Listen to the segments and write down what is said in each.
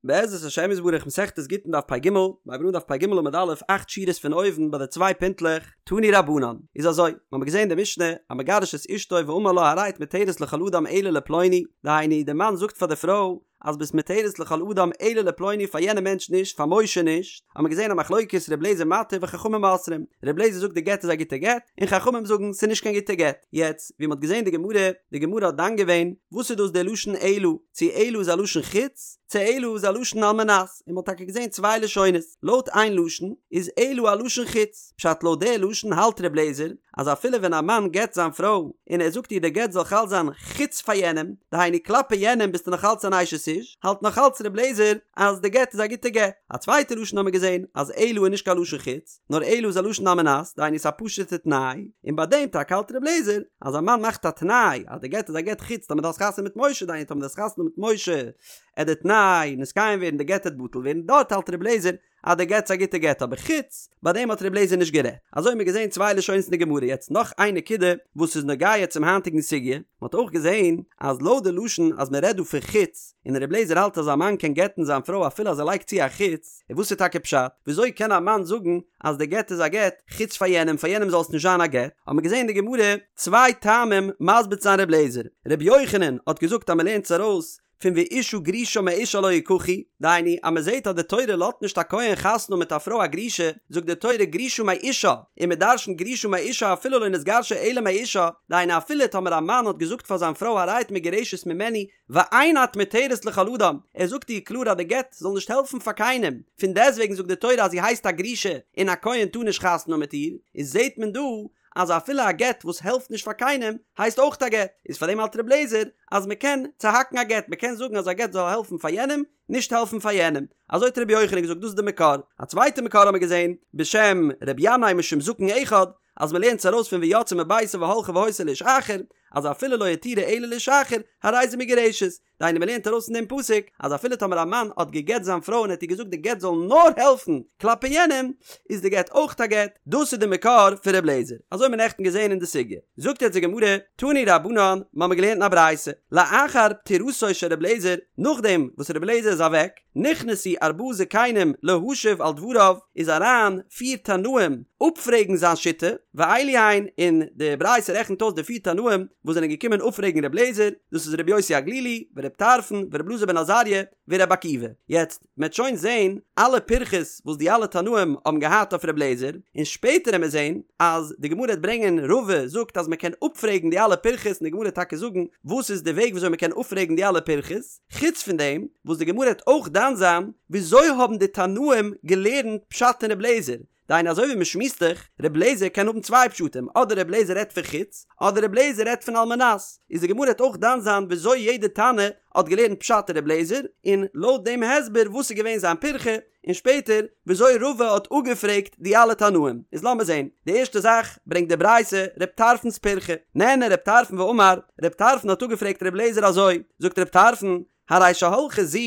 בעזרת השם יתברך מסכת גיטין דף פ"ג, מ'הייבט אן דף פ"ג עמוד א', אכט שורות פון אויבן ביי די צוויי פינטלעך, תנו רבנן, איז אזוי, מ'האמיר געזען די משנה, המגרש את אשתו ואמר לה הרי את מותרת לכל אדם אלא לפלוני, דהיינו די מאן זאגט פאר די פרוי אז ביסט מותרת לכל אדם אלא לפלוני פאר יענע מענטש נישט פאר משה נישט, האמיר געזען א מחלוקת ר' לעזער מתיר וחכמים אוסרים, ר' לעזער זאגט די גט איז א גוטע גט, און חכמים זאגן ס'איז נישט קיין גוטע גט, יעצט ווי מ'האט געזען די גמרא, די גמרא האט דן געווען וואס איז דאס די לשון אלא, צו אלא איז א לשון חוץ, צו אלא איז א לשון על מנת, און מ'האט טאקע געזען צוויי לשונות, לויט איין לשון איז אלא א לשון חוץ, פשט לויט די לשון האלט ר' לעזער אז אפילו ווען א מאן גט זיין פרוי און ער זאגט איר די גט זאל חל זיין חוץ פאר יענעם, דהיינו כלפי יענעם ביסטו נאך אלץ אן אשת איש, האלט נאך אלץ ר' לעזער אז די גט איז א גוטע גט. א צווייטע לשון האמיר געזען אז אלא איז נישט קיין לשון חוץ, נאר אלא איז א לשון על מנת, דהיינו ס'איז א פשוט'ע תנאי, און ביי דעם טאקע האלט ר' לעזער אז א מאן מאכט א תנאי אז די גט איז א גט חוץ טאמער דו האסט חתונה מיט משה, דהיינו טאמער דו האסט חתונה מיט משה עט די תנאי נתקיים ווערן די גט עט בטל ווערן, דארט האלט ר' לעזער אז די גט איז א גוטע גט אבער חוץ ביי דעם האט ר' לעזער נישט גערעדט. אזוי האבן מיר געזען צוויי לשונות אין די גמרא יעצט נאך איין נקודה וואס איז נוגע צום היינטיגן סוגיא, מען האט אויך געזען אז לויט די לשון אז מען רעדט דא פון חוץ און ר' לעזער האלט אז א מאן קען גט'ן זיין פרוי אפילו אז ער לייגט צו א חוץ, און וואס איז טאקע פשט? וויאזוי קען א מאן זאגן אז די גט איז א גט חוץ פאר יענעם פאר יענעם זאל עס נישט זיין א גט? האט מען געזען אין די גמרא צוויי טעמים מסביר צו זיין ר' לעזער, ר' יוחנן האט געזאגט אז מען לערנט עס ארויס פון ואשה גרושה מאישה לא יקחו, דהיינו אז מען זעט אז די תורה לאזט נישט א כהן חתונה מיט א פרוי א גרושה, זאגט די תורה גרושה מאישה, און מען דרשנ'ט גרושה מאישה אפילו לא נתגרשה אלא מאישה, דהיינו אפילו טאמער א מאן האט געזאגט פאר זיין פרוי הרי את מגורשת ממני ואין את מותרת לכל אדם, ער זאגט איר קלאר אז די גט זאל נישט העלפן פאר קיינעם, פון דעסטוועגן זאגט די תורה אז זי הייסט א גרושה און א כהן טאר נישט חתונה מיט איר, איז זעט מען דא אז אפילו א גט וואס העלפט נישט פאר קיינעם הייסט אויך א גט, איז פאר דעם האלט ר' לעזער אז מען קען צוהאקן א גט, מען קען זאגן אז א גט זאל העלפן פאר יענעם, נישט העלפן פאר יענעם, אזוי האט ר' יוחנן געזאגט דאס איז די מקור, א צווייטע מקור האמיר געזען בשם ר' ינאי משום זקן אחד, אז מען לערנט עס ארויס פון ויצאה מביתו והלכה והיתה לאיש אחר, אז אפילו לא התירה אלא לאיש אחר, הרי זו מגורשת, דהיינו מען לערנט ארויס פון דעם פסוק אז אפילו טאמער א מאן האט גע'גט זיין פרוי און האט איר געזאגט די גט זאל נאר העלפן כלפי יענעם, איז די גט אויך א גט, דאס איז די מקור פון ר' לעזער, אזוי האט מען נעכטן געזען אין די סוגיא. זאגט יעצט די גמרא, תנו רבנן, מ'האמיר געלערנט אין א ברייתא, לאחר פטירתו של ר' לעזער, נאכדעם וואס ר' לעזער איז אוועק, נכנסו ארבעה זקנים להשיב על דבריו, איז אריין פיר תנאים אפפרעגן זיין שיטה, ואלו הן, און די ברייתא רעכנט אויס די פיר תנאים וואס זענען געקומען אפפרעגן ר' לעזער, דאס איז ר' יוסי הגלילי, ור' טרפון, ור' אלעזר בן עזריה, ור' עקיבא. יעצט, מ'עט שוין זעהן אלע פירכות וואס די אלע תנאים האבן געהאט אויף ר' לעזער, און שפעטער עמיר זעהן אז די גמרא העט ברענגען רבא זאגט אז מ'קען אפפרעגן די אלע פירכות און די גמרא העט טאקע זאגן וואס איז די וועג וויאזוי מ'קען אפפרעגן די אלע פירכות, חוץ פון דעם וואס די גמרא העט אויך דן זיין וויאזוי האבן די תנאים געלערנט פשט אין ר' לעזער, דהיינו אזוי ווי מ'שמועסט דאך, ר' לעזער קען האבן צוויי פשטים, אדער ר' לעזער רעדט פון חוץ, אדער ר' לעזער רעדט פון על מנת, איז די גמרא העט אויך דן זיין וויאזוי יעדע תנא האט געלערנט פשט אין ר' לעזער, און לויט דעם הסבר וואס איז געווען זיין פירכא, און שפעטער וויאזוי רבא האט אפגעפרעגט די אלע תנאים. איז לאמיר זען, די ערשטע זאך ברענגט די ברייתא ר' טרפון'ס פירכא, נענה ר' טרפון ואמר, ר' טרפון האט אפגעפרעגט ר' לעזער אזוי, זאגט ר' טרפון, הרי שהלכה זו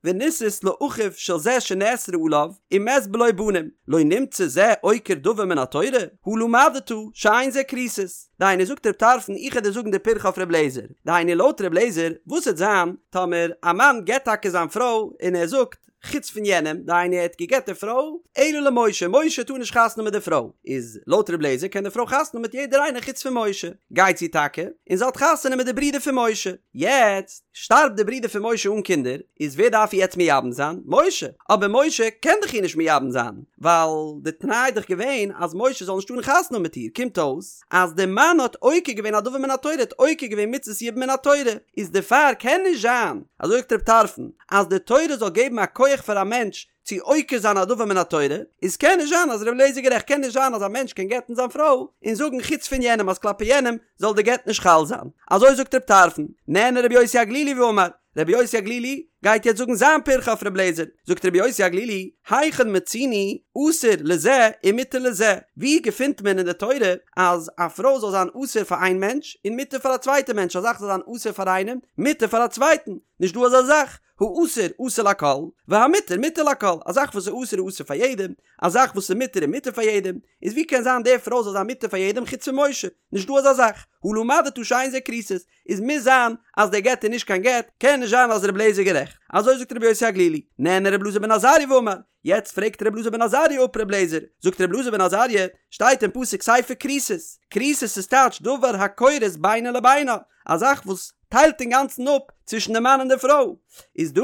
ונישאת לאחיו של זה שנאסרה עליו ומת בלא בנים, לא נמצא זה עוקר דבר מן התורה? הא למדת שאין זה כריתות. דהיינו זאגט ר' טרפון איך העט דיר זאגן די פירכא אויף ר' לעזער, דהיינו לויט ר' לעזער וואס העט זיין טאמער א מאן גט טאקע זיין פרוי און ער זאגט חוץ פון יענעם, דהיינו ער האט געגט די פרוי, אלא למשה, משה טאר נישט חתונה מיט די פרוי, איז לויט ר' לעזער קען די פרוי חתונה מיט יעדער איינער חוץ פון משה, גייט זי טאקע און זי האט חתונה מיט די ברודער פון משה, יעצט שטארבט די ברודער פון משה אן קינדער, איז ווער דארף איר יעצט מייבם זיין? משה! אבער משה קען דאך איר נישט מייבם זיין, ווייל די תנאי איז דאך געווען אז משה זאל נישט טארן חתונה האבן מיט איר, קומט אויס אז די מאן האט עוקר געווען א דבר מן התורה, האט עוקר געווען מצות יבום מן התורה, איז דערפאר קען נישט זיין, אזוי זאגט רב טרפון, אז די תורה זאל געבן א כח פאר א מענטש צו עוקר זיין א דבר מן התורה, איז קען נישט זיין אז ר' אליעזר איז גערעכט, קען נישט זיין אז א מענטש קען גט'ן זיין פרוי און זאגן חוץ פון יענעם אז כלפי יענעם זאל די גט נישט חל זיין, אזוי זאגט רב טרפון, נענה רבי יוסי הגלילי ואמר, רבי יוסי הגלילי גייט יעצט זאגן זיין פירכא אויף רבי אליעזר, זאגט רבי יוסי הגלילי, היכן מצינו אסור לזה ומותר לזה, ווי געפינט מען אין די תורה אז א פרוי זאל זיין אסור פאר איין מענטש און מותר פאר א צווייטע מענטש, א זאך זאל זיין אסור פאר איינעם, מותר פאר א צווייטן, נישט דא אזא זאך, האסור אסור לכל, והמותר מותר לכל, א זאך וואס איז אסור איז אסור פאר יעדעם, א זאך וואס איז מותר איז מותר פאר יעדעם, איז ווי קען זיין די פרוי זאל זיין מותר פאר יעדעם חוץ פון משה, נישט דא אזא זאך, הא למדת שאין זה כריתות, איז מוז זיין אז דער גט איז נישט קיין גט, קען נישט זיין אז רבי אליעזר איז גערעכט. אזוי זאגט רבי יוסי הגלילי, נענה רבי אלעזר בן עזריה ואמר, יעצט פרעגט רבי אלעזר בן עזריה אפ רבי אליעזר, זאגט רבי אלעזר בן עזריה, שטייט אין פסוק ספר כריתות, כריתות איז טייטש דבר הכורת בינו לבינה, א זאך וואס טיילט אינגאנצן אפ צווישן די מאן און די פרוי, איז דא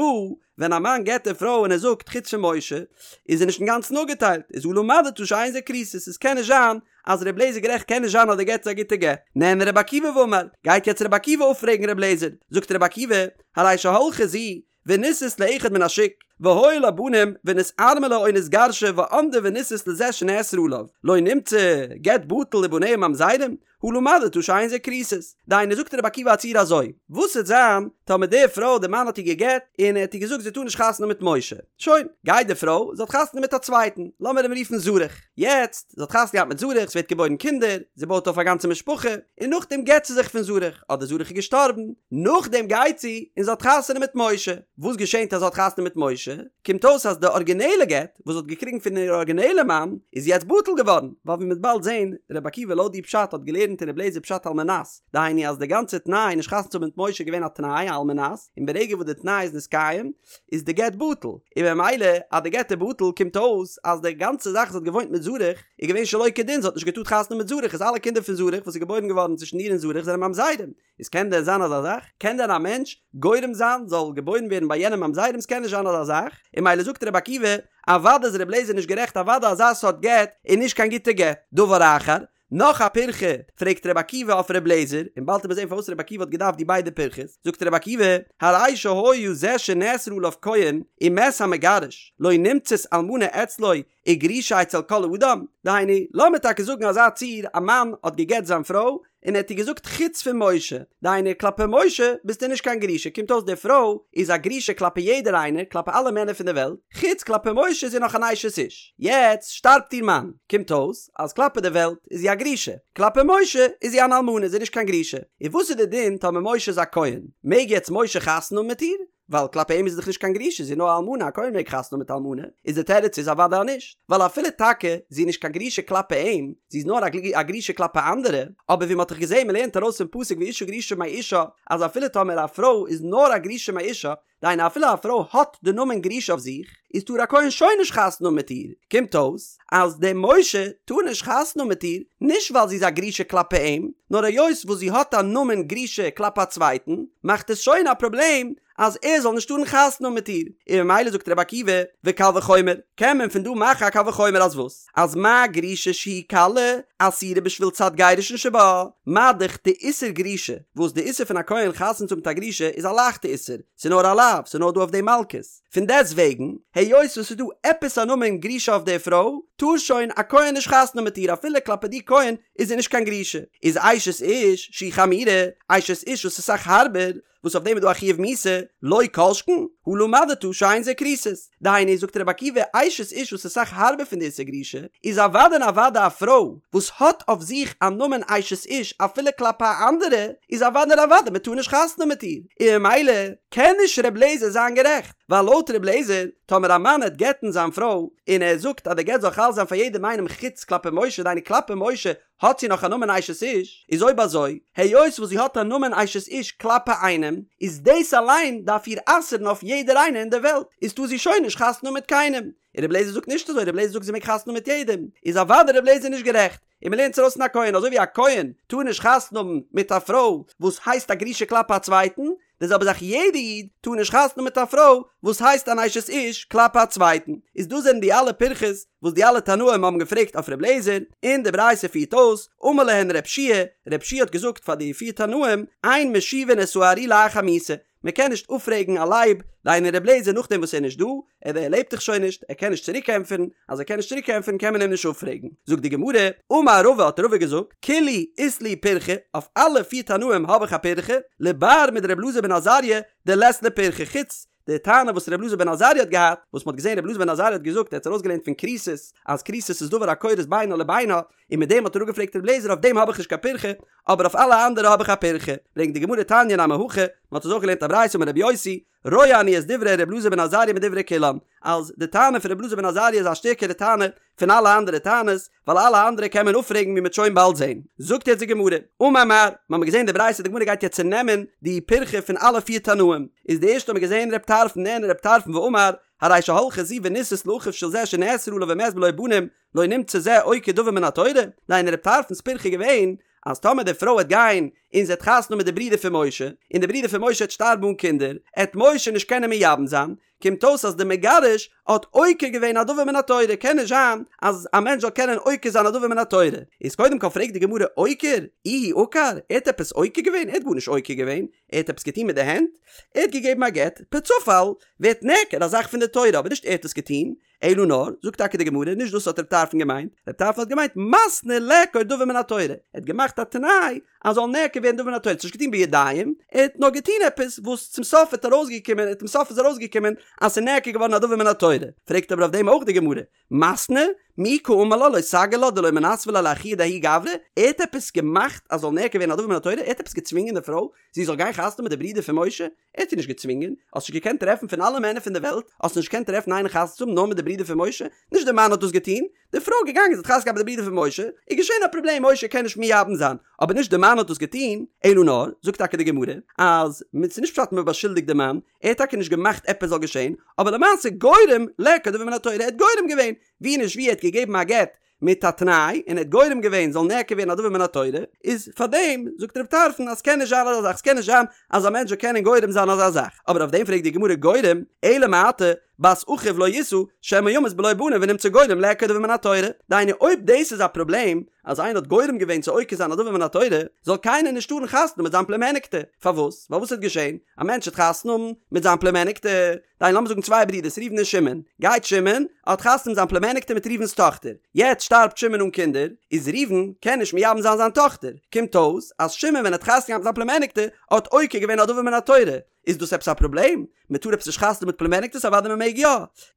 ווען א מאן גט די פרוי און ער זאגט חוץ פון משה, איז ער נישט אינגאנצן אפגעטיילט, איז הא למדת שאין זה כריתות, עס קען נישט זיין אז רבי אליעזר גערעכט קען נישט זיין אז די גט איז א גוטע גט. נענה רבי עקיבא ואמר, גייט יעצט רבי עקיבא אפפרעגן רבי אליעזר, זאגט רבי עקיבא, הרי שהלכה זו ונישאת לאחד מן השוק, והיו לה בנים ונתארמלה או נתגרשה ועמדה ונישאת לזה שנאסרה עליו, לא נמצא גט בטל ובניה ממזרים, הא למדת שאין זה כריתות. דהיינו זאגט רבי עקיבא א ציור אזוי, וואס וועט זיין טאמער די פרוי די מאן האט איר גע'גט און ער האט איר געזאגט זי טאר נישט חתונה מיט משה, שוין, גייט די פרוי, זי האט חתונה מיט א צווייטן, לאמיר אים רופן זרח, יעצט, זי האט חתונה געהאט מיט זרח, ס'ווערט געבוירן קינדער, זי בויט אויף א גאנצע משפחה, און נאכדעם גט זי זיך פון זרח, אדער זרח איז געשטארבן, נאכדעם גייט זי און זי האט חתונה מיט משה, וואס געשענט אז זי האט חתונה מיט משה? קומט אויס אז די ארגינעלע גט וואס זי האט געקריגן פון איר ארגינעלע מאן איז יעצט בטל געווארן, ווייל ווי מ'וועט באלד זען, רבי עקיבא לויט די פשט האט געלערנט אין רבי אליעזר פשט על מנת, דהיינו אז די גאנצע תנאי נישט חתונה צו האבן מיט משה איז געווען א תנאי על מנת, און ברגע וואס די תנאי איז נתקיים איז די גט בטל, און ממילא אז די גט איז בטל קומט אויס אז די גאנצע זאך זי האט געוואוינט מיט זרח איז געווען שלא כדין, זי האט נישט געטארט חתונה מיט זרח איז אלע קינדער פון זרח וואס איז געבוירן געווארן צווישן איר און זרח זענען ממזרים, איז קען דען זיין אזא זאך? קען דען א מענטש גורם זיין זאל געבוירן ווערן ביי יענעם ממזרים? ס'קען נישט זיין אזא זאך, און ממילא זאגט רבי עקיבא, אוודאי איז רבי אליעזר נישט גערעכט אוודאי אזא סארט גט איז נישט קיין גוטע גט. דבר אחר, נאך א פירכא פרעגט רבי עקיבא אויף רבי אליעזר, און באלד וועט מען זען פארוואס רבי עקיבא האט געדארפט די ביידע פירכות, זאגט רבי עקיבא, הרי שהיה זה שנאסרה עליו כהן ומת המגרש, לא נמצאת אלמנה אצלו וגרושה אצל כל אדם, דהיינו, לאמיר טאקע זאגן אזא ציור, א מאן האט גע'גט זיין פרוי, און ער האט איר געזאגט חוץ פון משה, דהיינו כלפי משה ביסטו נישט קיין גרושה, קומט אויס די פרוי איז א גרושה כלפי יעדער איינער, כלפי אלע מענער פון די וועלט, חוץ כלפי משה איז זי נאך אן אשת איש. יעצט שטארבט איר מאן, קומט אויס אז כלפי די וועלט איז זי א גרושה, כלפי משה איז זי אן אלמנה, זי איז נישט קיין גרושה. און וואס איז די דין טאמער משה איז א כהן, מעג יעצט משה חתונה האבן מיט איר? ווייל כלפי אים איז זי דאך נישט קיין גרושה, זי איז נאר א אלמנה, א כהן מעג חתונה האבן מיט אלמנה, איז די תירוץ איז אוודאי נישט, ווייל אפילו טאקע זי איז נישט קיין גרושה כלפי אים, זי איז נאר א גרושה כלפי אנדערע, אבער ווי מען האט דאך געזען מען לערנט ארויס פון פסוק ואשה גרושה מאישה, אז אפילו טאמער א פרוי איז נאר א גרושה מאישה, דהיינו אפילו א פרוי האט די נאמען גרושה אויף זיך, איז טאר א כהן שוין נישט חתונה האבן מיט איר, קומט אויס אז דער משה טאר נישט חתונה האבן מיט איר, נישט ווייל זי איז א גרושה כלפי אים, נאר היות וואס זי האט א נאמען גרושה כלפי א צווייטן, מאכט עס שוין א פראבלעם אז ער זאל נישט טארן חתונה האבן מיט איר, און ממילא זאגט רבי עקיבא, וקל וחומר, קען מען פון דא מאכן א קל וחומר אז וואס? אז מה גרושה שהיא קלה, אסורה בשביל צד גירושין שבה, מה דאך די איסור גרושה, וואס די איסור פון א כהן חתונה צו האבן מיט א גרושה איז א לייכטע איסור, ס'איז נאר א לאו, ס'איז נאר דא אויף דעם מלקות. פון דעסט וועגן, היות וואס ס'איז דא עפעס א נאמען גרושה אויף די פרוי, טאר שוין א כהן נישט חתונה האבן מיט איר אפילו כלפי די כהן איז זי נישט קיין גרושה. איז אשת איש שהיא חמורה, אשת איש וואס איז אסאך הארבער, וואס אויף דעם איז דא א חיוב מיתה, לא כל שכן, הא למדת שאין זה כריתות. דהיינו, זאגט רבי עקיבא, אשת איש וואס איז אסאך הארבער פון די איסור גרושה, איז אוודאי און אוודאי א פרוי וואס האט אויף זיך א נאמען אשת איש אפילו כלפי אנדערע, איז אוודאי און אוודאי מען טאר נישט חתונה מיט איר, און ממילא קען נישט ר' לעזער זיין גערעכט, ווייל לויט ר' לעזער, טאמער א מאן העט גט'ן זיין פרוי, און ער זאגט אז די גט זאל חל זיין פאר יעדעם איינעם חוץ כלפי משה, דהיינו כלפי משה האט זי נאך א נאמען אשת איש, איז אויב אזוי, היות וואס זי האט א נאמען אשת איש כלפי איינעם, איז דאס אליין דארף איר אסר'ן אויף יעדער איינער אין דער וועלט, איז טאר זי שוין נישט חתונה האבן מיט קיינעם. און ר' לעזער זאגט נישט אזוי, ר' לעזער זאגט זי מעג חתונה האבן מיט יעדעם, איז אוודאי ר' לעזער נישט גערעכט, און מ'לערנט עס ארויס פון א כהן, אזוי ווי א כהן טאר נישט חתונה האבן מיט א פרוי וואס הייסט א גרושה כלפי א צווייטן, די זעלבע זאך יעדע איד טאר נישט חתונה האבן מיט א פרוי וואס הייסט אן אשת איש כלפי א צווייטן, איז דאס זענען די אלע פירכות וואס די אלע תנאים האבן געפרעגט אויף ר' לעזער, און די ברייתא פירט אויס, אמר להן ר' יהושע, ר' יהושע האט געזאגט פאר די פיר תנאים, אין משיבין את הארי לאחר מיתה, מען קען נישט אפפרעגן א לייב, דהיינו ר' לעזער נאכדעם וואס ער איז נישט דא, ער ער לעבט דאך שוין נישט, ער קען נישט צוריק ענטפערן, אז ער קען נישט צוריק ענטפערן קען מען אים נישט אפפרעגן. זאגט די גמרא, אמר רבא האט רבא געזאגט, כולהו אית לי פירכא, אויף אלע פיר תנאים האב איך א פירכא, לבר מדר' אלעזר בן עזריה דלית ליה פירכא, חוץ די טענה וואס ר' אלעזר בן עזריה האט געהאט, וואס מ'האט געזען ר' אלעזר בן עזריה האט געזאגט ער האט ארויסגעלערנט פון כריתות אז כריתות איז דבר הכורת בינו לבינה, און מיט דעם האט ער אפגעפרעגט ר' לעזער אויף דעם האב איך נישט קיין פירכא, אבער אויף אלע אנדערע האב איך א פירכא. ברענגט די גמרא תניא נמי הכי, מ'האט עס אויך געלערנט א ברייתא אמר רבי יוסי, רואה אני את דברי ר' אלעזר בן עזריה מדברי כולם, אז די טענה פון רבי אלעזר בן עזריה איז א שטערקערע טענה פון אלע אנדערע טענות, ווייל אלע אנדערע קען מען אפפרעגן ווי מ'וועט שוין באלד זען. זאגט יעצט די גמרא, אמר מר, מ'האמיר געזען די ברייתא, די גמרא גייט יעצט צונעמען די פירכא פון אלע פיר תנאים, איז די ערשטע האמיר געזען רב טרפון נענה רב טרפון ואמר, הרי שהלכה זו ונישאת לאחיו של זה שנאסר עליו ומת בלא בנים, לא נמצא זה עוקר דבר מן התורה, דהיינו רב טרפון'ס פירכא איז געווען אז טאמער די פרוי וועט גיין און זי וועט חתונה האבן מיט די ברודער פון משה, און די ברודער פון משה וועט שטארבן אן קינדער, עט משה נישט קענען מייבם זיין, קומט אויס אז די מגרש האט עוקר געווען א דבר מן התורה, קען נישט זיין אז א מענטש זאל קענען עוקר זיין א דבר מן התורה, איז קודם כל פרעגט די גמרא עוקר? איהו עקר? ער האט עפעס עוקר געווען? ער האט גארנישט עוקר געווען, ער האט עפעס געטון מיט די הענט? ער האט געגעבן א גט, פער צופאל ווערט נעקר א זאך פון די תורה אבער נישט ער האט עס געטון, אלא נאר, זאגט טאקע די גמרא, נישט דאס האט רב טרפון געמיינט, רב טרפון האט געמיינט מתנה לעקור דבר מן התורה, ער האט געמאכט א תנאי אז זאל נעקר ווערן דבר מן התורה, ער האט עס נישט געטון בידיים, ער האט נאר געטון עפעס וואס צום סוף האט ארויסגעקומען, צום סוף איז ארויסגעקומען אז ס'איז נעקר געווארן א דבר מן התורה, פרעגט אבער אויף דעם אויך די גמרא, מתנה, מי קאמר לה לא סגי לה דלא מנסבא ליה לאחוה דההוא גברא, ער האט עפעס געמאכט אז זאל נעקר ווערן א דבר מן התורה, ער האט עפעס געצווינגען די פרוי זי זאל גיין חתונה מיט די ברודער פון משה? ער האט זי נישט געצווינגען, האסט נישט געקענט טרעפן פון אלע מענער פון די וועלט, האסט נישט געקענט טרעפן איינער חתונה צו האבן נאר מיט די ברודער פון משה, נישט די מאן האט דאס געטון, די פרוי איז געגאנגען זי האט חתונה געהאט מיט די ברודער פון משה, איז געשען א פראבלעם משה קען נישט מייבם זיין, אבער נישט די מאן האט דאס געטון, אלא נאר, זאגט טאקע די גמרא, אז ס'איז נישט פשט מען באשולדיגט די מאן, ער האט טאקע נישט געמאכט עפעס זאל געשען, אבער למעשה גורם לעקור דבר מן התורה, ער האט גורם געווען, ווי נישט ווי ער האט געגעבן א גט מיט א תנאי און ער האט גורם געווען זאל נעקר ווערן א דבר מן התורה, איז פאר דעם זאגט רב טרפון אז ס'קען נישט זיין אזא זאך, ס'קען נישט זיין אז א מענטש זאל קענען גורם זיין אזא זאך, אבער אויף דעם פרעגט די גמרא גורם, אלא מעתה בת אחיו לא ישא שמא ימות בלא בנים ונמצא גורם לעקור דבר מן התורה, דהיינו אויב דאס איז א פראבלעם אז איינער האט גורם געווען צו עוקר זיין א דבר מן התורה, זאל קיינער נישט טארן חתונה מיט זיין פלומעניקטע, פארוואס? ווייל וואס וועט געשען? א מענטש וועט חתונה האבן מיט זיין פלומעניקטע, דהיינו לאמיר זאגן צוויי ברידערס ראובן און שמעון, גייט שמעון, האט חתונה מיט זיין פלומעניקטע מיט ראובן'ס טאכטער, יעצט שטארבט שמעון אן קינדער, איז ראובן קען נישט מייבם זיין זיין טאכטער, קומט אויס אז שמעון ווען ער האט חתונה געהאט מיט זיין פלומעניקטע האט עוקר געווען א דבר מן התורה, איז דאס עפעס א פראבלעם? מען טאר עפעס נישט חתונה מיט פלומעניקטעס? אוודאי מען מעג יא!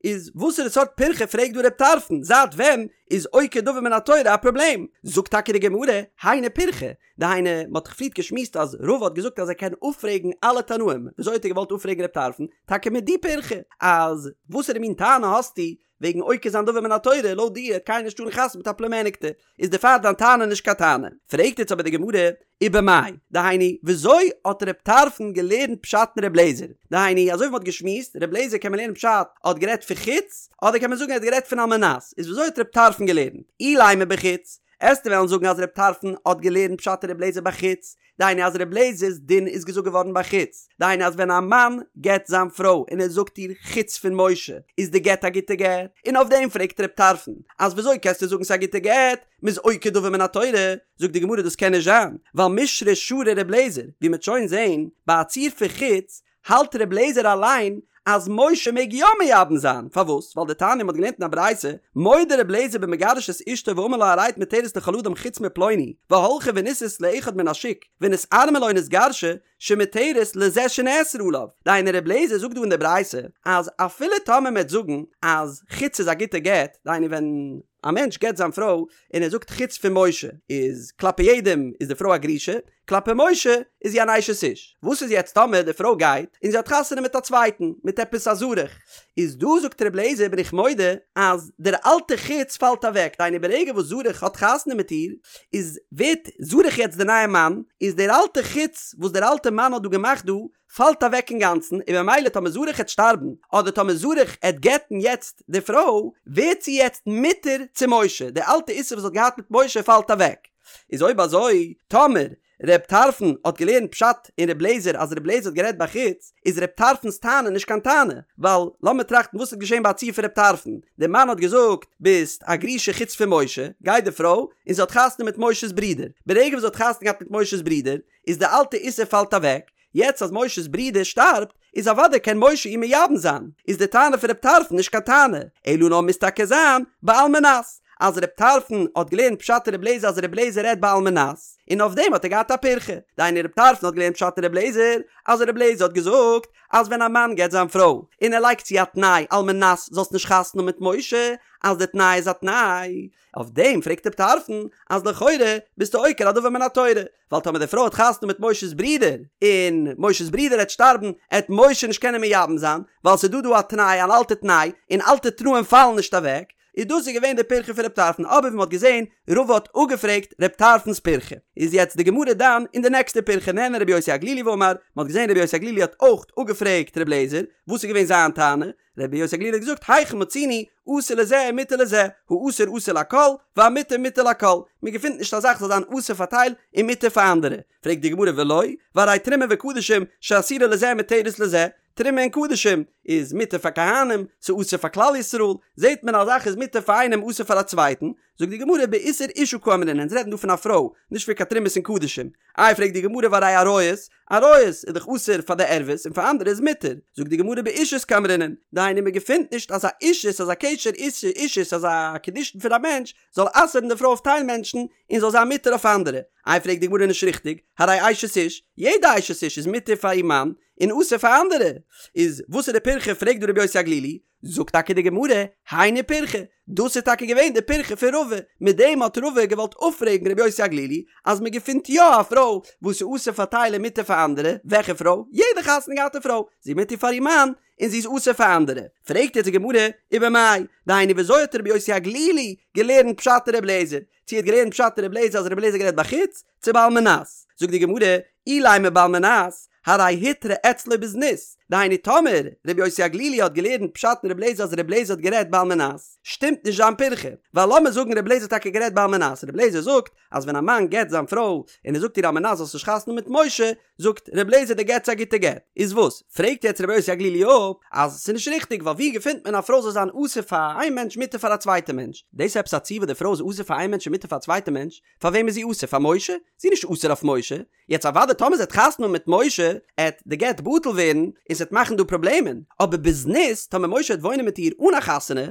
איז וואסערע סארט פירכא פרעגט דא רב טרפון, זייט ווען איז עוקר דבר מן התורה א פראבלעם? זאגט טאקע די גמרא, היינו פירכא, דהיינו, מען האט דאך פריערט געשמועסט אז רבא האט געזאגט אז ער קען אפפרעגן אלע תנאים, וויאזוי האט ער געוואלט אפפרעגן רב טרפון? טאקע מיט די פירכא, אז וואסערע מין טענה האסטו וועגן עוקר זיין דבר מן התורה, לויט דיר העט קיינער נישט טארן חתונה מיט א פלומעניקטע, איז דערפאר דיין טענה נישט קיין טענה. פרעגט יעצט אבער די גמרא, ובמאי, דהיינו, וויאזוי האט רב טרפון געלערנט פשט אין רב לעזער? דהיינו, אזוי ווי מען האט געשמועסט, רב לעזער קען מען לערנען פשט האט גערעדט פון חוץ, אדער קען מען זאגן ער האט גערעדט פון על מנת, איז וויאזוי האט רב טרפון געלערנט? אילימא בחוץ, עסטו וועלן זאגן אז ר' טרפון האט געלערנט פשט אין ר' לעזער בחוץ, דהיינו אז ר' לעזער'ס דין איז געזאגט געווארן בחוץ, דהיינו אז ווען א מאן גט זיין פרוי און ער זאגט איר חוץ פון משה איז די גט א גוטע גט, און אויף דעם פרעגט ר' טרפון אז וויאזוי קענסטו זאגן ס'איז א גוטע גט, מ'איז עוקר דבר מן התורה, זאגט די גמרא דאס קען נישט זיין, ווייל מישרא שרי ר' לעזער, ווי מ'עט שוין זעהן ביי א ציור פון חוץ, האלט ר' לעזער אליין אז משה מעג יא מייבם זיין, פארוואס? ווייל דתניא מ'האט געלערנט אין א ברייתא, מודה ר' לעזער במגרש את אשתו ואמר לה הרי את מותרת לכל אדם חוץ מפלוני, והלכה ונישאת לאחד מן השוק, ונתארמלה או נתגרשה, שמותרת לזה שנאסרה עליו. דהיינו ר' לעזער זאגט דא אין די ברייתא אז אפילו טאמער מ'עט זאגן אז חוץ איז א גוטע גט, דהיינו ווען א מענטש גט זיין פרוי און ער זאגט חוץ פון משה איז כלפי יעדעם איז די פרוי א גרושה, כלפי משה איז זי אן אשת איש. וואס איז יעצט טאמער די פרוי גייט און זי האט חתונה מיט א צווייטן, מיט עפעס א זרח, איז דא זאגט ר' לעזער בין איך מודה אז דער אלטע חוץ פאלט אוועק, דהיינו ברגע וואס זרח האט חתונה מיט איר איז ווערט זרח יעצט די נייע מאן, איז דער אלטע חוץ וואס דער אלטע מאן האט דא געמאכט דא פאלט אוועק אינגאנצן, און במילא טאמער זרח העט שטארבן, אדער טאמער זרח העט גט'ן יעצט די פרוי, ווערט זי יעצט מותר צו משה, די אלטע איסור וואס זי האט געהאט מיט משה פאלט אוועק. איז אויב אזוי, טאמער ר' טרפון האט געלערנט פשט אין ר' לעזער אז ר' לעזער האט גערעדט בחוץ, איז ר' טרפון'ס טענה נישט קיין טענה, ווייל לאמיר טראכטן וואס איז געשען ביי א ציור פון ר' טרפון, דער מאן האט געזאגט ביסט א גרושה חוץ פון משה, גייט די פרוי און זי האט חתונה מיט משה'ס ברודער, ברגע וואס זי האט חתונה געהאט מיט משה'ס ברודער, איז די אלטע איסור פאלט אוועק, יעצט אז משה'ס ברודער שטארבט, איז אוודאי קען משה איר מייבם זיין, איז די טענה פון ר' טרפון נישט קיין טענה, אלא נאר מוז טאקע זיין בעל מנת. אז ר' טרפון האט געלערנט פשט אין ר' לעזער אז ר' לעזער רעדט בעל מנת, און אויף דעם האט ער געהאט א פירכא. דהיינו ר' טרפון האט געלערנט פשט אין ר' לעזער אז ר' לעזער האט געזאגט אז ווען א מאן גט זיין פרוי און ער לייגט צו א תנאי על מנת זאלסט נישט חתונה האבן מיט משה, אז די תנאי איז א תנאי, אויף דעם פרעגט ר' טרפון אז לכאורה ביסטו עוקר א דבר מן התורה, ווייל טאמער די פרוי האט חתונה מיט משה'ס ברודער, און משה'ס ברודער העט שטארבן, העט משה נישט קענען מייבם זיין, ווייל ס'איז דא דא א תנאי, אן אלטע תנאי, און אלטע תנאים פאלן נישט אוועק, איז דאס איז געווען די פירכא פון ר' טרפון, אבער ווי מ'האט געזען, רבא האט אפגעפרעגט ר' טרפון'ס פירכא. איז יעצט די גמרא דן אין די נעקסטע פירכא נענה רבי יוסי הגלילי ואמר, מ'האט געזען רבי יוסי הגלילי האט אויך אפגעפרעגט ר' לעזער, וואס איז געווען זיין טענה? רבי יוסי הגלילי האט געזאגט היכן מצינו אסור לזה ומותר לזה, האסור אסור לכל, והמותר מותר לכל, מען געפינט נישט א זאך זאל זיין אסור פאר טייל און מותר פאר אנדערע, פרעגט די גמרא ולא, והרי תרומה וקדשים שאסורה לזה ומותרת לזה, תרומה און קדשים איז מותר פאר כהנים, ס'איז אסור פאר כלל ישראל, זעט מען א זאך איז מותר פאר איינעם אסור פאר א צווייטן, זאגט די גמרא באיסור אשה קאמרינן, אונז רעדן דא פון א פרוי, נישט פון קיין תרומות און קדשים. איי פרעגט די גמרא והרי עריות, עריות איז דאך אסור פאר די ערוות און פאר אנדערע איז מותר, זאגט די גמרא באישות קאמרינן, דהיינו מען געפינט נישט אז א אישות אז א קשר אישות אז א קידושין פון א מענטש זאל אסר'ן די פרוי אויף טייל מענטשן און זאל זיין מותר אויף אנדערע, איי פרעגט די גמרא נישט ריכטיג, הרי אשת איש, יעדע אשת איש איז מותר פאר איר מאן און אסור פאר אנדערע, איז וואס איז די פירכא פרעגט דא רבי יוסי הגלילי, זאגט טאקע די גמרא, היינו פירכא, דאס איז טאקע געווען די פירכא פון רבא, מיט דעם האט רבא געוואלט אפפרעגן רבי יוסי הגלילי אז מען געפינט יא א פרוי וואס איז אסור פאר טייל און מותר פאר אנדערע, וועלכע פרוי? יעדע חתונה געהאטע פרוי, זי איז מותר פאר איר מאן און זי איז אסור פאר אנדערע. פרעגט יעצט די גמרא, ובמאי, דהיינו ווי אזוי האט רבי יוסי הגלילי געלערנט פשט אין רבי אליעזר? צו ער האט געלערנט פשט אין רבי אליעזר אז רבי אליעזר האט גערעדט בחוץ, צו בעל מנת? זאגט די גמרא, אילימא בעל מנת, הרי הותרה אצלו בזנות, דהיינו טאמער רבי יוסי הגלילי האט געלערנט פשט אין רבי אליעזר אז רבי אליעזר האט גערעדט בעל מנת, שטימט נישט זיין פירכא, ווייל לאמיר זאגן רבי אליעזר האט טאקע גערעדט בעל מנת, רבי אליעזר זאגט אז ווען א מאן גט זיין פרוי און ער זאגט איר על מנת זאלסט נישט חתונה מיט משה, זאגט רבי אליעזר די גט איז א גוטע גט, איז וואס? פרעגט יעצט רבי יוסי הגלילי אפ אז ס'איז נישט ריכטיג ווייל ווי געפינט מען א פרוי זאל זיין אסור פאר איין מענטש מותר פאר א צווייטע מענטש? דאס איז עפעס א ציור וואס די פרוי איז אסור פאר איין מענטש און מותר פאר א צווייטע מענטש? פאר וועם איז זי אסור? פאר משה? זי איז נישט אסור אויף משה. יעצט אוודאי טאמער זי האט חתונה מיט משה עט די גט בטל ווערן און ס'עט מאכן דא פראבלעמען, אבער בזנות טאמער משה עט וואוינען מיט איר אן א חתונה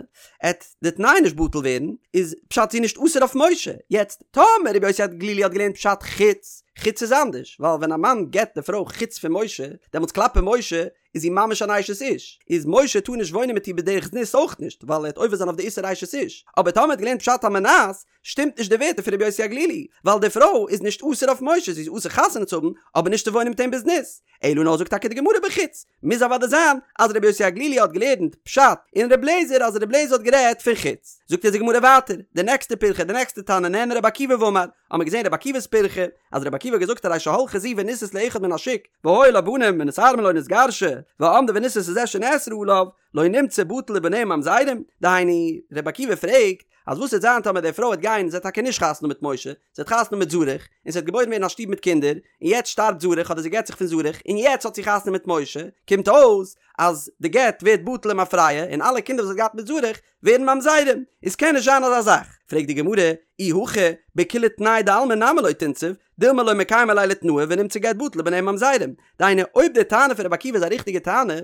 עט די תנאי נישט בטל ווערן, איז פשט זי איז נישט אסור אויף משה. יעצט טאמער רבי יוסי הגלילי האט געלערנט פשט חוץ, חוץ איז אנדערש, ווייל ווען א מאן גט די פרוי חוץ פון משה, דעמאלטס כלפי משה איז זי ממש אן אשת איש, איז משה טאר נישט וואוינען מיט איר בדרך זנות אויך נישט, ווייל ער עט עובר זיין אויף די איסור אשת איש, אבער טאמער האט געלערנט פשט על מנת, שטימט נישט די ווערטער פון רבי יוסי הגלילי, ווייל די פרוי איז נישט אסור אויף משה, זי איז אסור חתונה צו האבן, אבער נישט צו וואוינען מיט אים בזנות. אלא נאר זאגט טאקע די גמרא בחוץ, מוז אוודאי זיין אז רבי יוסי הגלילי האט געלערנט פשט אין רבי אליעזר אז רבי אליעזר האט גערעדט פון חוץ. זאגט אונז די גמרא ווייטער, די נעקסטע פירכא, די נעקסטע תנא נענה רבי עקיבא ואמר, האמיר געזען רבי עקיבא'ס פירכא, אז רבי עקיבא האט געזאגט הרי שהלכה זו ונישאת לאחד מן השוק, והיו לה בנים ונתארמלה או נתגרשה, ועמדה ונישאת לזה שנאסרה עליו, לא נמצא בטל ובניה ממזרים, דהיינו, רבי עקיבא פרעגט, אז וואס וועט זיין טאמער די פרוי וועט גיין זי האט טאקע נישט חתונה מיט משה, זי האט חתונה מיט זרח, און ס'וועט געבוירן ווערן א שטוב מיט קינדער, און יעצט שטארבט זרח אדער זי גט זיך פון זרח, און יעצט האט זי חתונה מיט משה, קומט אויס אז די גט ווערט בטל למפרע, און אלע קינדער וואס זי האט געהאט מיט זרח ווערן ממזרים, איז קען נישט זיין אזא זאך, פרעגט די גמרא, אי הכי, בכולי תנאי דעלמא נמי לא תנסיב, דילמא לא מקיימא ליה לתנאה ונמצא גט בטל ובניה ממזרים. דהיינו, אויב די טענה פון רבי עקיבא איז א ריכטיגע טענה,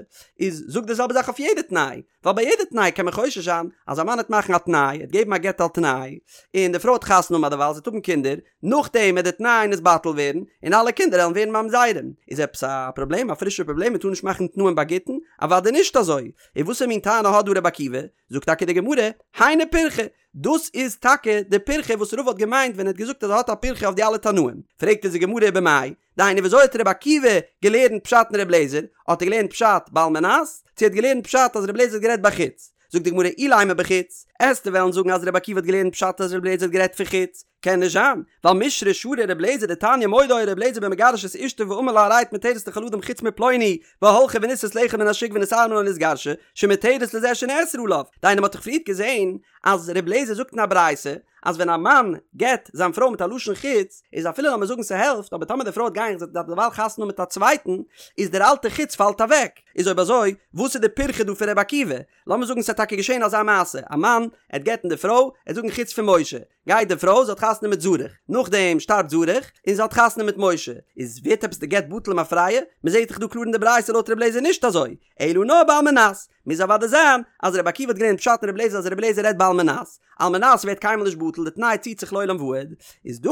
איז זאג די זעלבע זאך אויף יעדע תנאי, ווייל ביי יעדע תנאי קען מען חושש זיין אז א מאן העט מאכן א תנאי, העט געבן א גט על תנאי, און די פרוי האט חתונה האבן אדערווייל זי וועט האבן קינדער, נאכדעם וועט די תנאי נתבטל ווערן, און אלע קינדער וועלן ווערן ממזרים. איז עפעס א פראבלעם? א פרישע פראבלעם? מען טאר נישט מאכן תנאים ביי גיטין? אוודאי נישט אזוי! און וואסער מין טענה האט דא רבי עקיבא? זאגט טאקע די גמרא, היינו פירכא, דאס איז טאקע די פירכא וואס רבא האט געמיינט ווען ער האט געזאגט אז ער האט א פירכא אויף די אלע תנאים. פרעגט אונז די גמרא ובמאי, דהיינו ווי אזוי האט רבי עקיבא געלערנט פשט אין רבי אליעזר? האט ער געלערנט פשט בעל מנת? צו ער האט געלערנט פשט אז רבי אליעזר האט גערעדט בחוץ? זאגט די גמרא אילימא בחוץ, עסטו וועלן זאגן אז רבי עקיבא האט געלערנט פשט אז רבי אליעזר האט גערעדט פון חוץ? קען נישט זיין, ווייל מישרא שרי רבי אליעזר דתניא מודה היה רבי אליעזר במגרש את אשתו ואמר לה הרי את מותרת לכל אדם חוץ מפלוני והלכה ונישאת לאחד מן השוק ונתארמלה או נתגרשה שמותרת לזה שנאסרה עליו, דהיינו מ'האט דאך פריערט געזען אז רבי אליעזר זאגט אין א ברייתא אז ווען א מאן גט זיין פרוי מיט א לשון חוץ איז אפילו לאמיר זאגן ס'העלפט אבער טאמער די פרוי האט גיין זי האט דערווייל חתונה מיט א צווייטן איז דער אלטע חוץ פאלט אוועק איז אויב אזוי וואס איז די פירכא דא פון רבי עקיבא לאמיר זאגן ס'האט טאקע געשען אזא מעשה א מאן עט גט'ן די פרוי עט זאגן חוץ פון משה גייט די פרוי זי האט חתונה מיט זרח נאכדעם שטארבט זרח און זי האט חתונה מיט משה איז ווערט עפעס די גט בטל למפרע מ'זעט דאך דא קלאר אין די ברייתא לויט רבי אליעזר נישט אזוי אלא נאר בעל מנת. מוז אוודאי זיין אז רבי עקיבא האט געלערנט פשט אין רבי אליעזר אז רבי אליעזר רעדט בעל מנת, על מנת ווערט קיינמאל נישט בטל, די תנאי ציט זיך לעולם ועד, איז דא,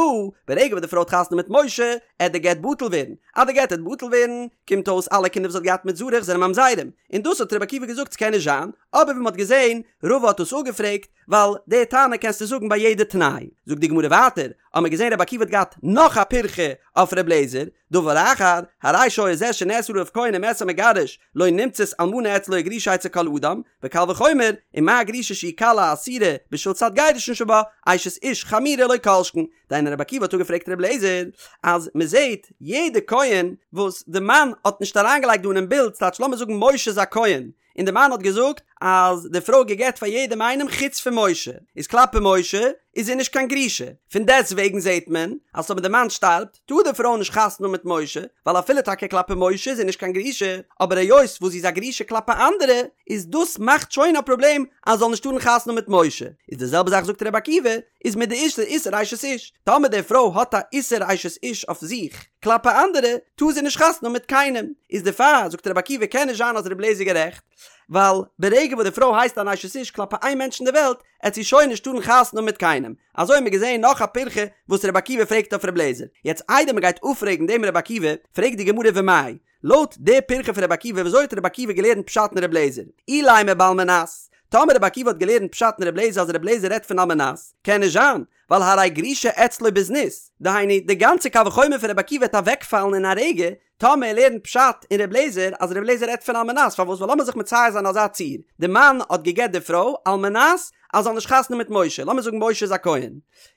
ברגע וואס די פרוי האט חתונה מיט משה, עט די גט בטל ווערן, אז די גט עט בטל ווערן, קומט אויס אלע קינדער וואס זי האט געהאט מיט זרח זענען ממזרים, און דאס האט רבי עקיבא געזאגט ס'קען נישט זיין, אבער ווי מ'האט געזען, רבא האט דאס אפגעפרעגט, ווייל די טענה קענסטו זאגן ביי יעדע תנאי. זאגט די גמרא ווייטער, האמיר געזען רבי עקיבא האט געהאט נאך א פירכא אויף רבי אליעזר, דבר אחר, הרי שהיה זה שנאסר עליו כהן ומת המגרש, לא נמצאת אלמנה אצלו וגרושה אצל כל אדם, וקל וחומר, ומה גרושה שהיא קלה אסורה בשביל צד גירושין שבה, אשת איש חמורה לא כל שכן. דהיינו רבי עקיבא האט אפגעפרעגט רבי אליעזר אז מען זעט יעדע כהן וואס די מאן האט נישט אריינגעלייגט דא אינעם בילד, ס'טייטש לאמיר זאגן משה איז א כהן, און די מאן האט געזאגט אז די פרוי געגעט פאר יעדעם איינעם חוץ פון משה, איז כלפי משה איז זי נישט קיין גרושה, פון דעסט וועגן זעט מען אז אויב די מאן שטארבט טאר די פרוי נישט חתונה האבן מיט משה, ווייל אפילו טאקע כלפי משה איז זי נישט קיין גרושה, אבער היות וואס זי איז א גרושה כלפי אנדערע, איז דאס מאכט שוין א פראבלעם אז זי זאל נישט טארן חתונה האבן מיט משה, איז די זעלבע זאך זאגט רבי עקיבא, איז מיט די איסור אשת איש, טאמער די פרוי האט א איסור אשת איש אויף זיך כלפי אנדערע, טאר זי נישט חתונה האבן מיט קיינעם, איז דערפאר זאגט רבי עקיבא קען נישט זיין אז רבי אליעזר איז גערעכט, ווייל ברגע וואס די פרוי הייסט אן אשת איש כלפי איין מענטש אין די וועלט, עט זי שוין נישט טארן חתונה האבן מיט קיינעם, אזוי האבן מיר געזען נאך א פירכא וואס רבי עקיבא פרעגט אויף רבי אליעזר, יעצט איידער מען גייט אפפרעגן דעם רבי עקיבא, פרעגט די גמרא ומאי, לויט די פירכא פון רבי עקיבא וויאזוי האט רבי עקיבא געלערנט פשט אין רבי אליעזר? אילימא בעל מנת, טאמער רבי עקיבא האט געלערנט פשט אין רבי אליעזר אז רבי אליעזר רעדט פון על מנת, קען נישט זיין, ווייל הרי גרושה אצלו בזנות, דהיינו די גאנצע קל וחומר פון רבי עקיבא וועט אוועקפאלן אין א רגע, טאמער ער לערנט פשט אין רבי אליעזר אז רבי אליעזר רעדט פון על מנת, פארוואס ווייל לאמיר זיך מצייר זיין אזא ציור, די מאן האט גע'גט די פרוי על מנת אז זי זאל נישט חתונה מיט משה, לאמיר זאגן משה איז א כהן,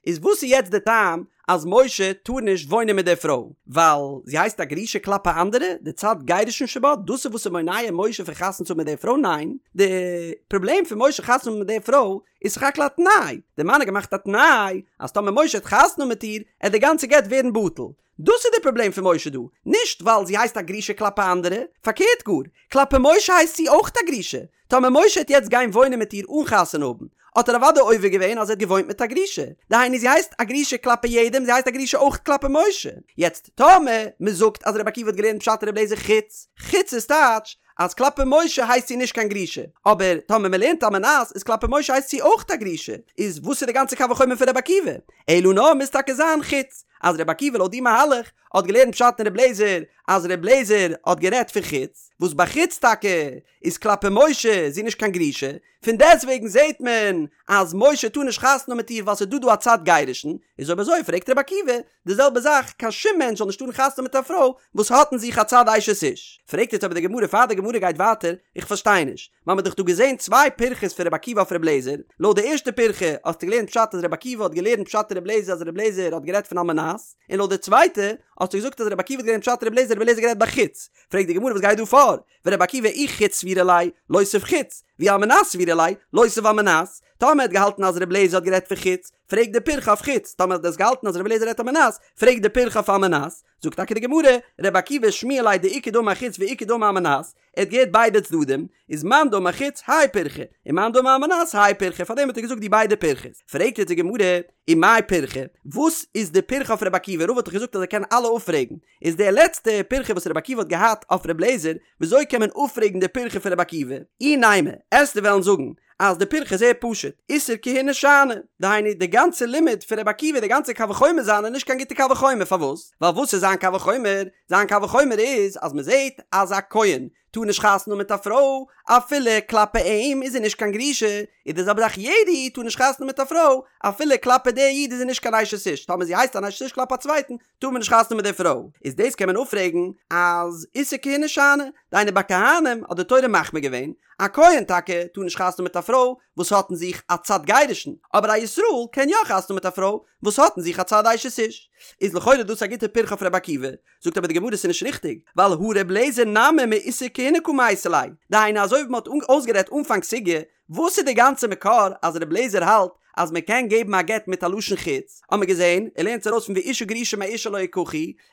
איז וואס איז יעצט די טעם אז משה טאר נישט וואוינען מיט די פרוי ווייל זי הייסט א גרושה כלפי אנדערע, די צד גירושין שבה, דאס איז וואס איז מונע משה פון חתונה צו האבן מיט די פרוי? ניין, די פראבלעם פון משה חתונה האבן מיט די פרוי איז סך הכל א תנאי, די מאן האט געמאכט א תנאי אז טאמער משה האט חתונה מיט איר עט די גאנצע גט ווערן בטל, דאס איז די פראבלעם פון משה דא, נישט ווייל זי הייסט א גרושה כלפי אנדערע, פארקערט גאר, כלפי משה הייסט זי אויך א גרושה, טאמער משה העט יעצט גיין וואוינען מיט איר אן חתונה האבן, האט ער אוודאי עובר געווען אז ער האט געוואוינט מיט א גרושה, דהיינו זי הייסט א גרושה כלפי יעדעם, זי הייסט א גרושה אויך כלפי משה. יעצט טאמער מען זאגט אז רבי עקיבא האט געלערנט פשט אין רבי אליעזר חוץ, חוץ איז טייטש אז כלפי משה הייסט זי נישט קיין גרושה, אבער טאמער מען לערנט על מנת איז כלפי משה הייסט זי אויך א גרושה, איז וואס איז די גאנצע קל וחומר פון רבי עקיבא? אלא נאר מוז טאקע זיין חוץ, אז רבי עקיבא לויט די מהלך האט געלערנט פשט אין רבי אליעזר אז רבי אליעזר האט גערעדט פון חוץ, וואס ביי חוץ טאקע איז כלפי משה זי נישט קיין גרושה, פון דעסטוועגן זעהט מען אז משה טאר נישט חתונה האבן מיט איר ווייל ס'איז דא דא א צד גירושין, איז אויב אזוי פרעגט רבי עקיבא די זעלבע זאך, קיין שום מענטש זאל נישט טארן חתונה האבן מיט א פרוי וואס האט אין זיך א צד אשת איש. פרעגט יעצט אבער די גמרא פאר די גמרא גייט ווייטער, איך פארשטיי נישט, מ'האמיר דאך דא געזעהן צוויי פירכות פון רבי עקיבא אויף רבי אליעזר, לויט די ערשטע פירכא האסטו געלערנט פשט אז רבי עקיבא האט געלערנט פשט אין רבי אליעזר אז רבי אליעזר האט גערעדט פון על מנת, און לויט די צווייטע האסטו געזאגט אז רבי עקיבא האט געלערנט פשט אין רבי אליעזר רבי אליעזר גערעדט ביי חוץ, פרעגט די גמרא וואס גייט דא פאר? ורבי עקיבא אי חוץ סבירא ליה, לותיב חוץ, ואי על מנת סבירא ליה, לותיב על מנת. טאמער האט געהאלטן אז רבי אליעזר האט גערעדט פון חוץ, פרעגט די פירכא אויף חוץ, טאמער האט עס געהאלטן אז רבי אליעזר רעדט על מנת, פרעגט די פירכא אויף על מנת. זאגט טאקע די גמרא, רבי עקיבא שמיע ליה דאיכא דאמר חוץ ואיכא דאמר על מנת, ער האט געהערט ביידע צדדים, איז מאן דאמר חוץ האי פירכא, און מאן דאמר על מנת האי פירכא, פארדעם האט ער געזאגט די ביידע פירכות. פרעגט יעצט די גמרא, ומאי פירכא, וואס איז די פירכא אויף רבי עקיבא, רבא האט דאך געזאגט אז ער קען אלע אפפרעגן, איז די לעצטע פירכא וואס רבי עקיבא האט געהאט אויף רבי אליעזר, וויאזוי קען מען אפפרעגן די פירכא פון רבי עקיבא? אי נימא, עסטו וועלן זאגן אז די פירכא איז זייער פשוט, איסור כהונה שאני, דהיינו די גאנצע לימוד פון רבי עקיבא, די גאנצע קל וחומר זיינע איז נישט קיין גוטע קל וחומר, פארוואס? ווייל וואס איז זיין קל וחומר? זיין קל וחומר איז אז מען זעט אז א כהן טאר נישט חתונה האבן מיט א פרוי אפילו כלפי אים איז זי נישט קיין גרושה, איז די זעלבע זאך יעדע איד טאר נישט חתונה האבן מיט א פרוי אפילו כלפי די איד איז זי נישט קיין אשת איש, טאמער זי הייסט אן אשת איש כלפי א צווייטן טאר מען נישט חתונה האבן מיט די פרוי, איז דאס קען מען אפפרעגן אז איסור כהונה שאני, דהיינו ביי כהנים האט די תורה מחמיר געווען, א כהן טאקע טאר נישט חתונה האבן מיט א פרוי וואס האט אין זיך א צד גירושין, אבער א ישראל קען יא חתונה האבן מיט א פרוי וואס האט אין זיך א צד אשת איש. איז לכאורה דאס א גוטע פירכא אויף רבי עקיבא, זאגט אבער די גמרא ס'איז נישט ריכטיג, ווייל הא ר' אליעזר נמי מאיסור כהונה קא מייתי ליה, דהיינו אזוי ווי מ'האט אויסגערעדט אנפאנג סוגיא, וואס איז די גאנצע מקור אז ר' אליעזר האלט אז מען קען געבן א גט מיט א לשון חוץ, האט מען געזען, ער לערנט עס ארויס פון ואשה גרושה מאישה לא יקחו,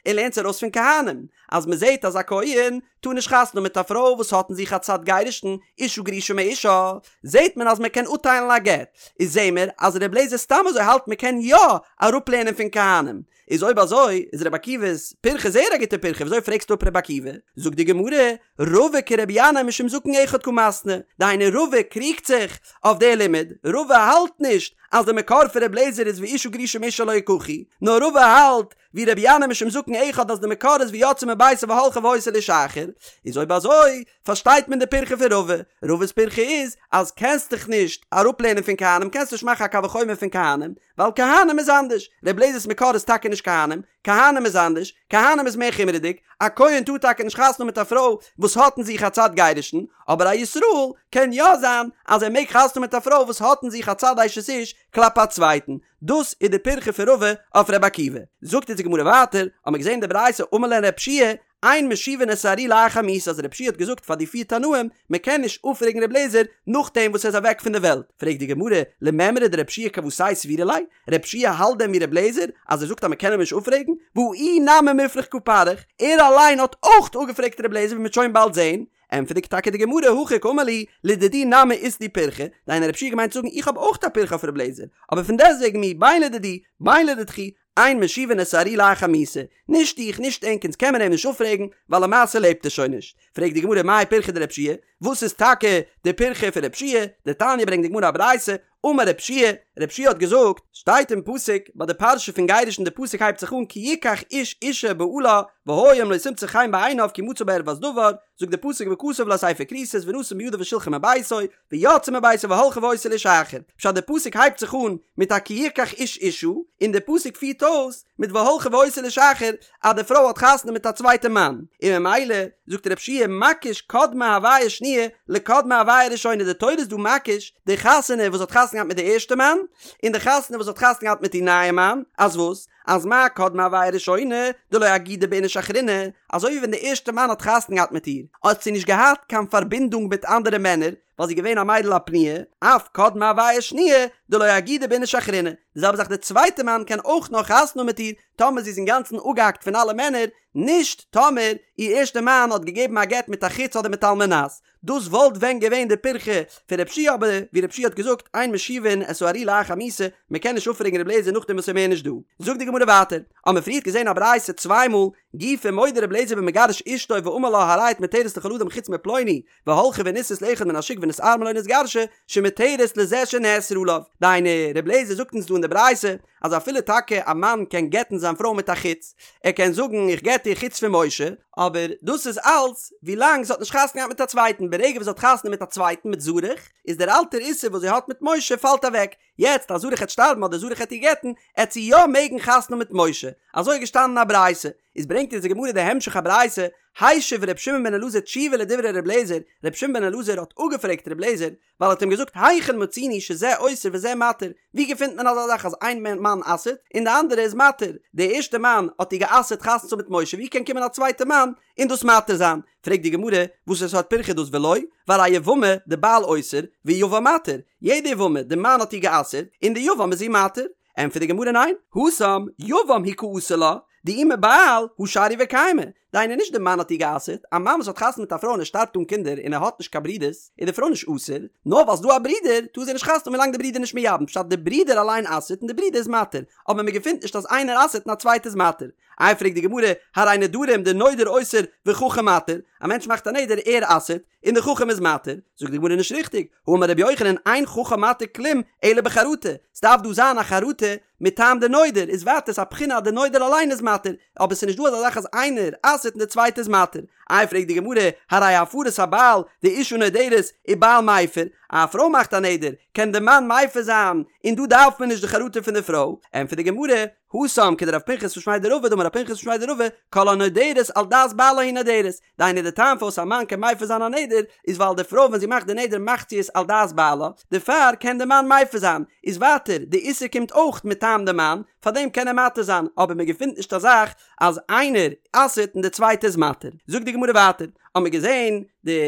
ער לערנט עס ארויס פון כהנים, אז מען זעט אז א כהן טאר נישט חתונה האבן מיט א פרוי וואס האט אין זיך א צד גירושין, אשה גרושה מאישה, זעט מען אז מען קען אפטיילן א גט, איז זעהן מיר אז ר' אליעזר סתם אזוי האלט מען קען יא אראפלערנען פון כהנים, איז אויב אזוי איז ר' עקיבא'ס פירכא זייער א גוטע פירכא, וויאזוי פרעגסטו אפ ר' עקיבא? זאגט די גמרא, רבא כרבי ינאי משום זקן אחד קא מתני, דהיינו רבא קריגט זיך אויף די לימוד, רבא האלט נישט אז די מקור פון ר' אליעזר איז ואשה גרושה מאישה לא יקחו, נאר רבא האלט ווי רבי ינאי משום זקן אחד אז די מקור איז ויצאה מביתו והלכה והיתה לאיש אחר, איז אויב אזוי פארשטייט מען די פירכא פון רבא, רבא'ס פירכא איז אז קענסט דיך נישט אראפלערנען פון כהנים קענסט נישט מאכן א קל וחומר פון כהנים ווייל כהנים איז אנדערש, ר' אליעזר'ס מקור איז טאקע נישט כהנים, כהנים איז אנדערש, כהנים איז מער חומרה'דיג, א כהן טאר טאקע נישט חתונה האבן מיט א פרוי וואס האט אין זיך א צד גירושין, אבער א ישראל קען יא זיין אז ער מעג חתונה האבן מיט א פרוי וואס האט אין זיך א צד אשת איש כלפי א צווייטן, דאס איז די פירכא פון רבא אויף ר' עקיבא. זאגט אונז די גמרא ווייטער, האמיר געזען די ברייתא אמר להן ר' יהושע אין משיבין את הארי לאחר מיתה אז ר' יהושע האט געזאגט פאר די פיר תנאים מען קען נישט אפפרעגן ר' אליעזר נאכדעם וואס ער איז אוועק פון די וועלט, פרעגט די גמרא, למימרא דר' יהושע כוותיה סבירא ליה, ר' יהושע האלט דען ווי ר' אליעזר אז ער זאגט אז מען קען אים נישט אפפרעגן, והא איהו נמי מופרך קא פריך, ער אליין האט אויך אפגעפרעגט ר' אליעזר ווי מען וועט שוין באלד זען, ענטפערט טאקע די גמרא הכי קאמר להו לדידי נמי אית לי פירכא, דהיינו ר' יהושע האט געמיינט צו זאגן איך האב אויך א פירכא אויף ר' אליעזר, אבער פון דעסטוועגן מיהו בין לדידי בין לדידכו אין משיבין את הארי לאחר מיתה, נישט איך נישט ענק אונז קען מען אים נישט אפפרעגן ווייל למעשה לעבט ער שוין נישט, פרעגט די גמרא מאי פירכא דר' יהושע, וואס איז טאקע די פירכא פון ר' יהושע, דתניא ברענגט די גמרא א ברייתא, אמר ר' יהושע, ר' יהושע האט געזאגט, שטייט אין פסוק ביי די פרשה פון גירושין די פסוק הייבט זיך אן כי יקח איש אשה ובעלה והיה אם לא תמצא חן בעיניו כי מצא בה ערות דבר, זאגט די פסוק וכתב לה ספר כריתות ונתן בידה ושלחה מביתו, ויצאה מביתו והלכה והיתה לאיש אחר, פשט די פסוק הייבט זיך אן מיט א כי יקח איש אשה, און די פסוק פירט אויס מיט והלכה והיתה לאיש אחר אז די פרוי האט חתונה מיט א צווייטע מאן, און ממילא זאגט ר' יהושע מקיש קדמה הוויה שניה לקדמה הוויה ראשונה די תורה איז דא מקיש די חתונה וואס האט חתונה געהאט מיט די ערשטע מאן, און די חתונה וואס האט חתונה געהאט מיט איר נייע מאן, אז וואס? אז מה קדמה הוויה ראשונה דלא אגידא באיניש אחרינא, אזוי ווי ווען די ערשטע מאן האט חתונה געהאט מיט איר, האט זי נישט געהאט קיין פארבינדונג מיט אנדערע מענער, ווייל זי איז געווען א מיידל א פנויה, אף קדמה הוויה שניה דלא אגידא באיניש אחרינא, די זעלבע זאך די צווייטע מאן קען אויך נאר חתונה האבן מיט איר טאמער זי איז אינגאנצן אפגעהאקט פון אלע מענער, נישט טאמער איר ערשטע מאן האט געגעבן א גט מיט א חוץ אדער מיט על מנת. דאס וואלט ווען געווען די פירכא פון ר' יהושע אבער ווי ר' יהושע האט געזאגט אין משיבין את הארי לאחר מיתה מען קען נישט אפפרעגן ר' אליעזר נאכדעם וואס ער מער נישט דא. זאגט די גמרא ווייטער, האמיר פריערט געזען א ברייתא צוויי מאל, גופא מודה ר' אליעזר במגרש אשתו ואמר לה הרי את מותרת לכל אדם חוץ מפלוני, והלכה ונישאת לאחד מן השוק ונתארמלה או נתגרשה, שמותרת לזה שנאסרה עליו. דהיינו, ר' אליעזר זאגט אונז דא אין די ברייתא, אז אפילו טאקע א מאן קען גט'ן זיין פרוי מיט א חוץ, ער קען זאגן איך גט דיר חוץ פון משה, אבער דאס איז אלץ ווילאנג זי האט נישט חתונה געהאט מיט א צווייטן, ברגע וואס זי האט חתונה מיט א צווייטן מיט זרח, איז דער אלטער איסור וואס זי האט מיט משה פאלט אוועק, יעצט אז זרח העט שטארבן אדער זרח העט איר גט'ן, עט זי יא מעגן חתונה האבן מיט משה, אזוי איז געשטאנען אין א ברייתא, איז ברענגט אונז די גמרא די המשך הברייתא, השיב ר' שמעון בן אלעזר תשובה לדברי ר' אליעזר, ר' שמעון בן אלעזר האט אפגעפרעגט ר' אליעזר, ווייל ער האט אים געזאגט היכן מצינו שזה אוסר וזה מתיר, ווי געפינט מען אזא זאך אז איין מאן אסר'ט און די אנדערע איז מתיר, די ערשטע מאן האט איר גע'אסר'ט חתונה צו האבן מיט משה ווי קען קומען א צווייטע מאן און דאס מתיר זיין, פרעגט די גמרא וואס סארט פירכא איז דאס ולא, והרי יבמה דבעל אוסר ויבם מתיר, יעדע יבמה די מאן האט איר גע'אסר'ט און די יבם איז איר מתיר, ענטפערט די גמרא ניין, התם יבם הוא קאסר לה, דאי מבעל הא שריא וקיימא, דהיינו נישט די מאן האט איר גע'אסר'ט, א מאן וואס האט חתונה מיט א פרוי און ער שטארבט אן קינדער און ער האט נישט קיין ברודערס, איז די פרוי נישט אסור, נאר ווייל ס'דא א ברודער טאר זי נישט חתונה האבן ווילאנג די ברודער נישט מייבם, פשט די ברודער אליין אסר'ט און די ברודער איז מתיר, אבער מען געפינט נישט אז איינער אסר'ט און א צווייטער איז מתיר. איי פרעגט די גמרא, הרי נדרים דנודר אוסר וחכם מתיר, א מענטש מאכט א נדר ער אסר'ט, און די חכם איז מתיר, זאגט די גמרא נישט ריכטיג, האמר רבי יוחנן אין חכם מתיר כלום אלא בחרטה, ס'דארף דא זיין א חרטה מטעם די נודר, איז ווייטער ס'א בחינה אז די נודר אליין איז מתיר, אבער ס'נישט דא אזא זאך אז איינער אסר'ט און די צווייטע איז מתיר. איי פרעגט די גמרא, הרי הפרת הבעל דאשה נודרת ובעל מפר, א פרוי מאכט א נדר, קען די מאן מפר זיין, און דא דארף מען נישט די חרטה פון די פרוי, ענטפערט די גמרא, התם כדרב פנחס משמיה דרבא דאמר רב פנחס משמיה דרבא, כל הנודרת על דעת בעלה היא נודרת, דהיינו די טעם פארוואס א מאן קען מפר זיין א נדר איז ווייל די פרוי ווען זי מאכט די נדר מאכט זי עס על דעת בעלה, דערפאר קען די מאן מפר זיין, איז ווייטער די איסור קומט אויך מטעם די מאן, פארדעם קען ער מתיר זיין, אבער מען געפינט נישט א זאך אז איינער אסר'ט און די צווייטע איז מתיר. זאגט די גמרא ווייטער, האמיר געזען די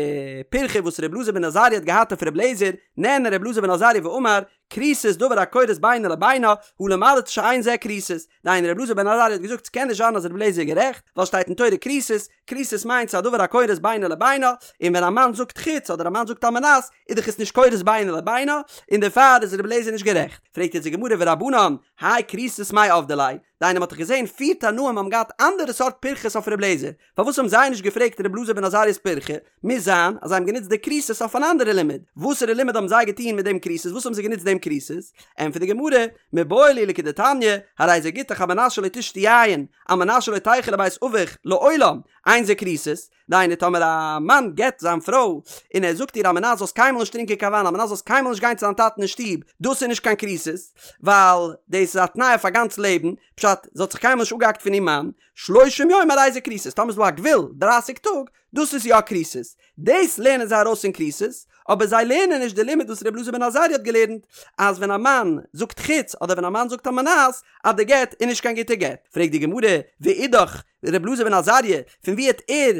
פירכא וואס ר' אלעזר בן עזריה האט געהאט אויף ר' אליעזר, נענה ר' אלעזר בן עזריה ואמר, כריתות דבר הכורת בינו לבינה, הא למדת שאין זה כריתות. דהיינו ר' אלעזר בן עזריה האט געזאגט ס'קען נישט זיין אז ר' אליעזר איז גערעכט, ווייל שטייט אין תורה כריתות, כריתות מיינט ס'איז א דבר הכורת בינו לבינה, און ווען א מאן זאגט חוץ אדער א מאן זאגט על מנת, איז דאך עס נישט כורת בינו לבינה, און דערפאר איז ר' אליעזר נישט גערעכט. פרעגט יעצט די גמרא ורבנן, האי כריתות מאי עבדי ליה, דהיינו מ'האט דאך געזען פיר תנאים האבן געהאט אנדערע סארט פירכות אויף ר' אליעזר, פארוואס האבן זיי נישט געפרעגט ר' אלעזר בן עזריה'ס פירכא? מוז זיין אז זיי האבן גענוצט די כריתות אויף אן אנדערע לימוד. וואסערע לימוד האבן זיי געטון מיט דעם כריתות? וואס האבן זיי גענוצט דעם כריתות? ענטפערט די גמרא, מיבעי להו לכדתניא, הרי זה גיטך על מנת שלא תשתי יין, על מנת שלא תלכי לבית אביך, לעולם, אין זה כריתות. דהיינו טאמער א מאן גט זיין פרוי און ער זאגט איר על מנת זאלסט קיינמאל נישט טרינקען קיין וויין על מנת זאלסט קיינמאל נישט גיין צו דיין טאטן אין שטוב, דאס איז נישט קיין כריתות, ווייל דאס איז א תנאי אויף א גאנץ לעבן, פשט, זי האט זיך קיינמאל נישט אפגעהאקט פון איר מאן, שלושים יום הרי זה כריתות, טאמער איז דא א גבול דרייסיג טאג, דאס איז יא כריתות. דאס לערנען זיי ארויס פון כריתות, אבער זיי לערנען נישט די לימוד וואס ר' אלעזר בן עזריה האט געלערנט, אז ווען א מאן זאגט חוץ אדער ווען א מאן זאגט על מנת, אז די גט איז נישט קיין גוטע גט. פרעגט די גמרא, ואידך, ר' אלעזר בן עזריה, פון וואו העט ער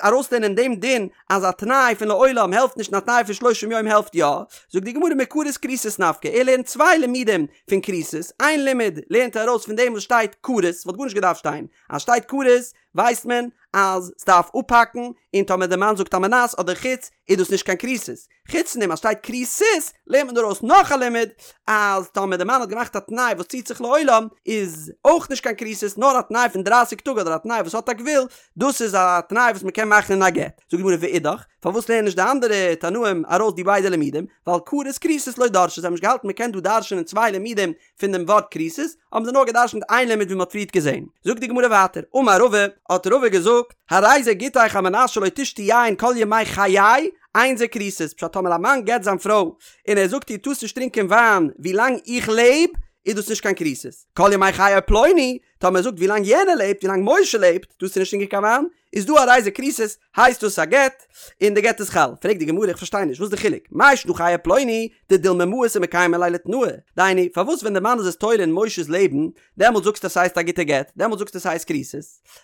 ארויסלערנען דעם דין אז א תנאי פון לעולם העלפט נישט און א תנאי פון שלושים יום העלפט יא? זאגט די גמרא מכרת כריתות נפקא, ער לערנט צוויי לימודים פון כריתות, איין לימוד לערנט ער ארויס פון דעם וואס שטייט כרת, ס'וואלט גארנישט געדארפט שטיין, אז שטייט כרת ווייסט מען אז ס'דארף אפהאקן, און טאמער די מאן זאגט על מנת אדער חוץ איז דאס נישט קיין כריתות. חוץ פון דעם אז שטייט כריתות לערנט מען ארויס נאך א לימוד אז טאמער די מאן האט געמאכט א תנאי וואס ציט זיך לעולם איז אויך נישט קיין כריתות נאר א תנאי פון דרייסיג טאג אדער א תנאי וואס האט א גבול דאס איז א תנאי וואס מ'קען מאכן אין א גט. זאגט די גמרא ואידך, פארוואס לערנען נישט די אנדערע תנאים ארויס די ביידע לימודים? ווייל כרת כריתות לא דרשי, זיי האבן נישט געהאלטן מ'קען דא דרש'נען צוויי לימודים פון דעם ווארט כריתות, האבן זיי נאר געדרשנט איין לימוד ווי מ'האט פריערט געזען. זאגט די גמרא ווייטער, אמר רבא, האט רבא געזאגט, הרי זה גיטך על מנת שלא תשתי יין כל ימי חיי, אין זה כריתות, פשט טאמער א מאן גט זיין פרוי, און ער זאגט איר טארסט נישט טרינקען וויין ווי לאנג איך לעב, איז דאס נישט קיין כריתות. כל ימי חיי פלוני, טאמער ער זאגט ווי לאנג יענער לעבט, ווי לאנג משה לעבט, טארסטו נישט טרינקען קיין וויין, איז דא הרי זה כריתות, הייסט דאס א גט, און די גט איז חל. פרעגט די גמרא איך פארשטיי נישט, וואס איז די חילוק? מאי שנא חיי פלוני, דדילמא מאיס ומקיימא ליה לתנאיה, דהיינו, פארוואס ווען די מאן איז עס תולה אין משה'ס לעבן, דעמאלט זאגסטו אז ס'הייסט א גוטע גט, דעמאלט זאגסטו ס'הייסט כריתות,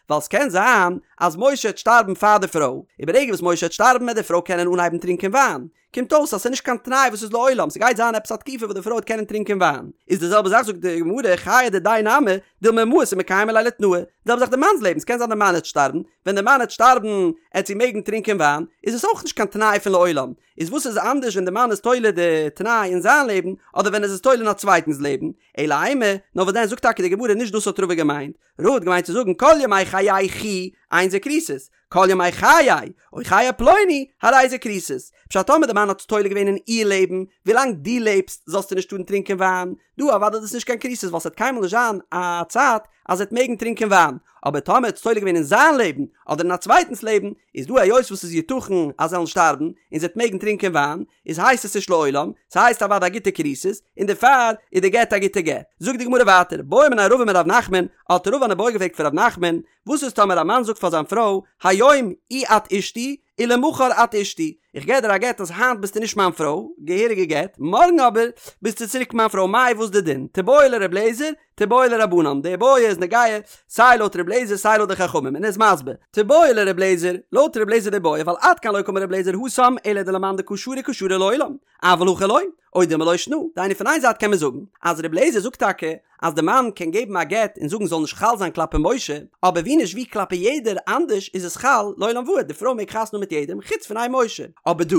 ווייל ס'קען זיין אז משה העט שטארבן פאר די פרוי, און ברגע וואס משה העט שטארבן העט די פרוי קענען אנהייבן טרינקען וויין, קומט אויס אז ס'איז נישט קיין תנאי וואס איז לעולם, ס'גייט זיין עפעס א תקופה וואס די פרוי וועט קענען טרינקען וויין. איז די זעלבע זאך זאגט די גמרא חיי דידיה נמי, דילמא מאיס ומקיימא ליה לתנאיה, די זעלבע זאך די מאנ'ס לעבן, ס'קען זיין די מאן העט שטארבן, ווען די מאן העט שטארבן העט זי מעגן טרינקען וויין, איז עס אויך נישט קיין תנאי פון לעולם, איז וואס איז אנדערש ווען די מאן איז תולה די תנאי אין זיין לעבן אדער ווען ער איז עס תולה אין א צווייטנס לעבן, אלא אימא, נאר וואס דען זאגט טאקע די גמרא נישט דאס האט רבא געמיינט, רבא האט געמיינט צו זאגן כל ימי חייכי אין זה כריתות, כל ימי חיי, או חיי פלוני, הרי זה כריתות. פשט טאמער די מאן האט עס תולה געווען אין איר לעבן, ווילאנג דו לעבסט זאלסטו נישט טארן טרינקען וויין, דא אוודאי איז דאס נישט קיין כריתות ווייל ס'וועט קיינמאל נישט זיין א צייט אז זי וועט מעגן טרינקען וויין, אבער טאמער האט עס תולה געווען אין זיין לעבן אדער אין א צווייטנס לעבן, איז דא היות וואס ס'איז יתכן אז זיי וועלן שטארבן און זי וועט מעגן טרינקען וויין, איז הייסט עס נישט לעולם, ס'הייסט אוודאי א גוטע כריתות, און דערפאר איז די גט א גוטע גט. זאגט די גמרא ווייטער, בעא מיניה רבא מרב נחמן, האט רבא אן איבעיא געפרעגט פון רב נחמן, וואס איז טאמער א מאן זאגט פאר זיין פרוי, היום אי את אשתי, ולמחר את אשתי, איך געב דיר א גט אז היינט ביסטו נישט מיין פרוי, געהעריגע גט, מארגן אבער ביסטו צוריק מיין פרוי, מאי וואס די דין? תיבעי לר' אליעזר, תיבעי לרבנן, די איבעיא איז נוגע סיי לויט ר' אליעזר סיי לויט די חכמים, און ער איז מסביר, תיבעי לר' אליעזר, לויט ר' אליעזר די איבעיא, ווייל עד כאן לא קאמר ר' אליעזר התם אלא דלמאן דקא שרי קא שרי לעולם, אבל הכא לא, או דילמא לא שנא, דהיינו פון איין זייט קען מען זאגן אז ר' אליעזר זאגט טאקע אז די מאן קען געבן א גט און זאגן זאל נישט חל זיין כלפי משה, אבער ווי נישט ווי כלפי יעדער אנדערש איז עס חל לעולם ועד, די פרוי מעג חתונה האבן מיט יעדעם חוץ פון איין משה, אבער דא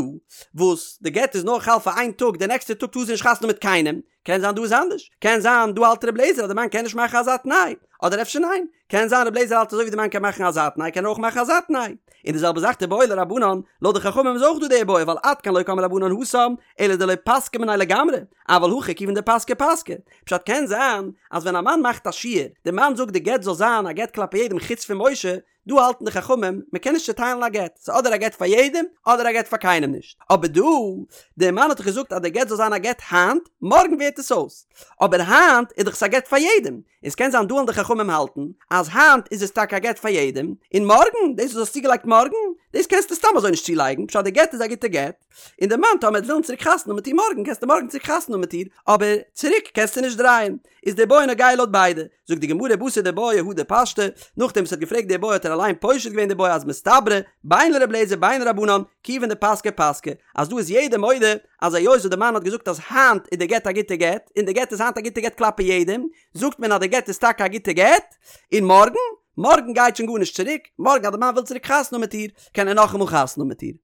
וואס די גט איז נאר חל פאר איין טאג די נעקסטע טאג טאר זי נישט חתונה האבן מיט קיינעם, קען זיין דא איז אנדערש, קען זיין דא האלט ר' אליעזר אז די מאן קען נישט מאכן אזא תנאי, אדער אפשר ניין, קען זיין ר' אליעזר האלט אזוי ווי די מאן קען מאכן אזא תנאי קען ער אויך מאכן אזא תנאי, און די זעלבע זאך תיבעי לרבנן, לויט די חכמים איז אויך דא די איבעיא ווייל עד כאן לא קאמרי רבנן התם, אלא דלא פסקי מיניה לגמרי, אבל הכא כיוון דפסקי פסקי. פשט קען זיין אז ווען א מאן מאכט א שיור, די מאן זאגט די גט זאל זיין א גט כלפי יעדעם חוץ פון משה, דא האלטן די חכמים מען קען נישט צוטיילן א גט, ס'איז אדער א גט פאר יעדעם אדער א גט פאר קיינעם נישט, אבער דא, די מאן האט דאך געזאגט אז די גט זאל זיין א גט היינט, מארגן ווערט עס אויס, אבער היינט איז דאך עס א גט פאר יעדעם, און ס'קען זיין דא וועלן די חכמים האלטן אז היינט איז עס טאקע א גט פאר יעדעם, און מארגן, דאס וואס האסט צוגעלייגט מארגן, דאס קענסטו סתם אזוי נישט צולייגן, פשט די גט איז א גוטע גט, און די מאן טאמער וועט ווילן צוריק חתונה האבן מיט איר מארגן קענסטו מארגן צוריק חתונה האבן מיט איר, אבער צוריק קענסטו נישט דרייען. איז די בעיא נוגע לויט ביידע. זאגט די גמרא בתר דבעיא הדר פשטה, נאכדעם וואס ער האט געפרעגט די בעיא האט ער אליין פושט געווען די בעיא אז מסתברא בין לר' אליעזר בין לרבנן כיוון דפסקה פסקה, אז דא איז יעדער מודה אז היות וואס די מאן האט געזאגט אז היינט איז די גט א גוטע גט, און די גט איז היינט א גוטע גט כלפי יעדעם, זאגט מען אז די גט איז טאקע א גוטע גט, און מארגן? מארגן גייט שוין גארנישט צוריק, מארגן אז די מאן וויל צוריק חתונה האבן מיט איר, קען ער נאכאמאל חתונה האבן מיט איר.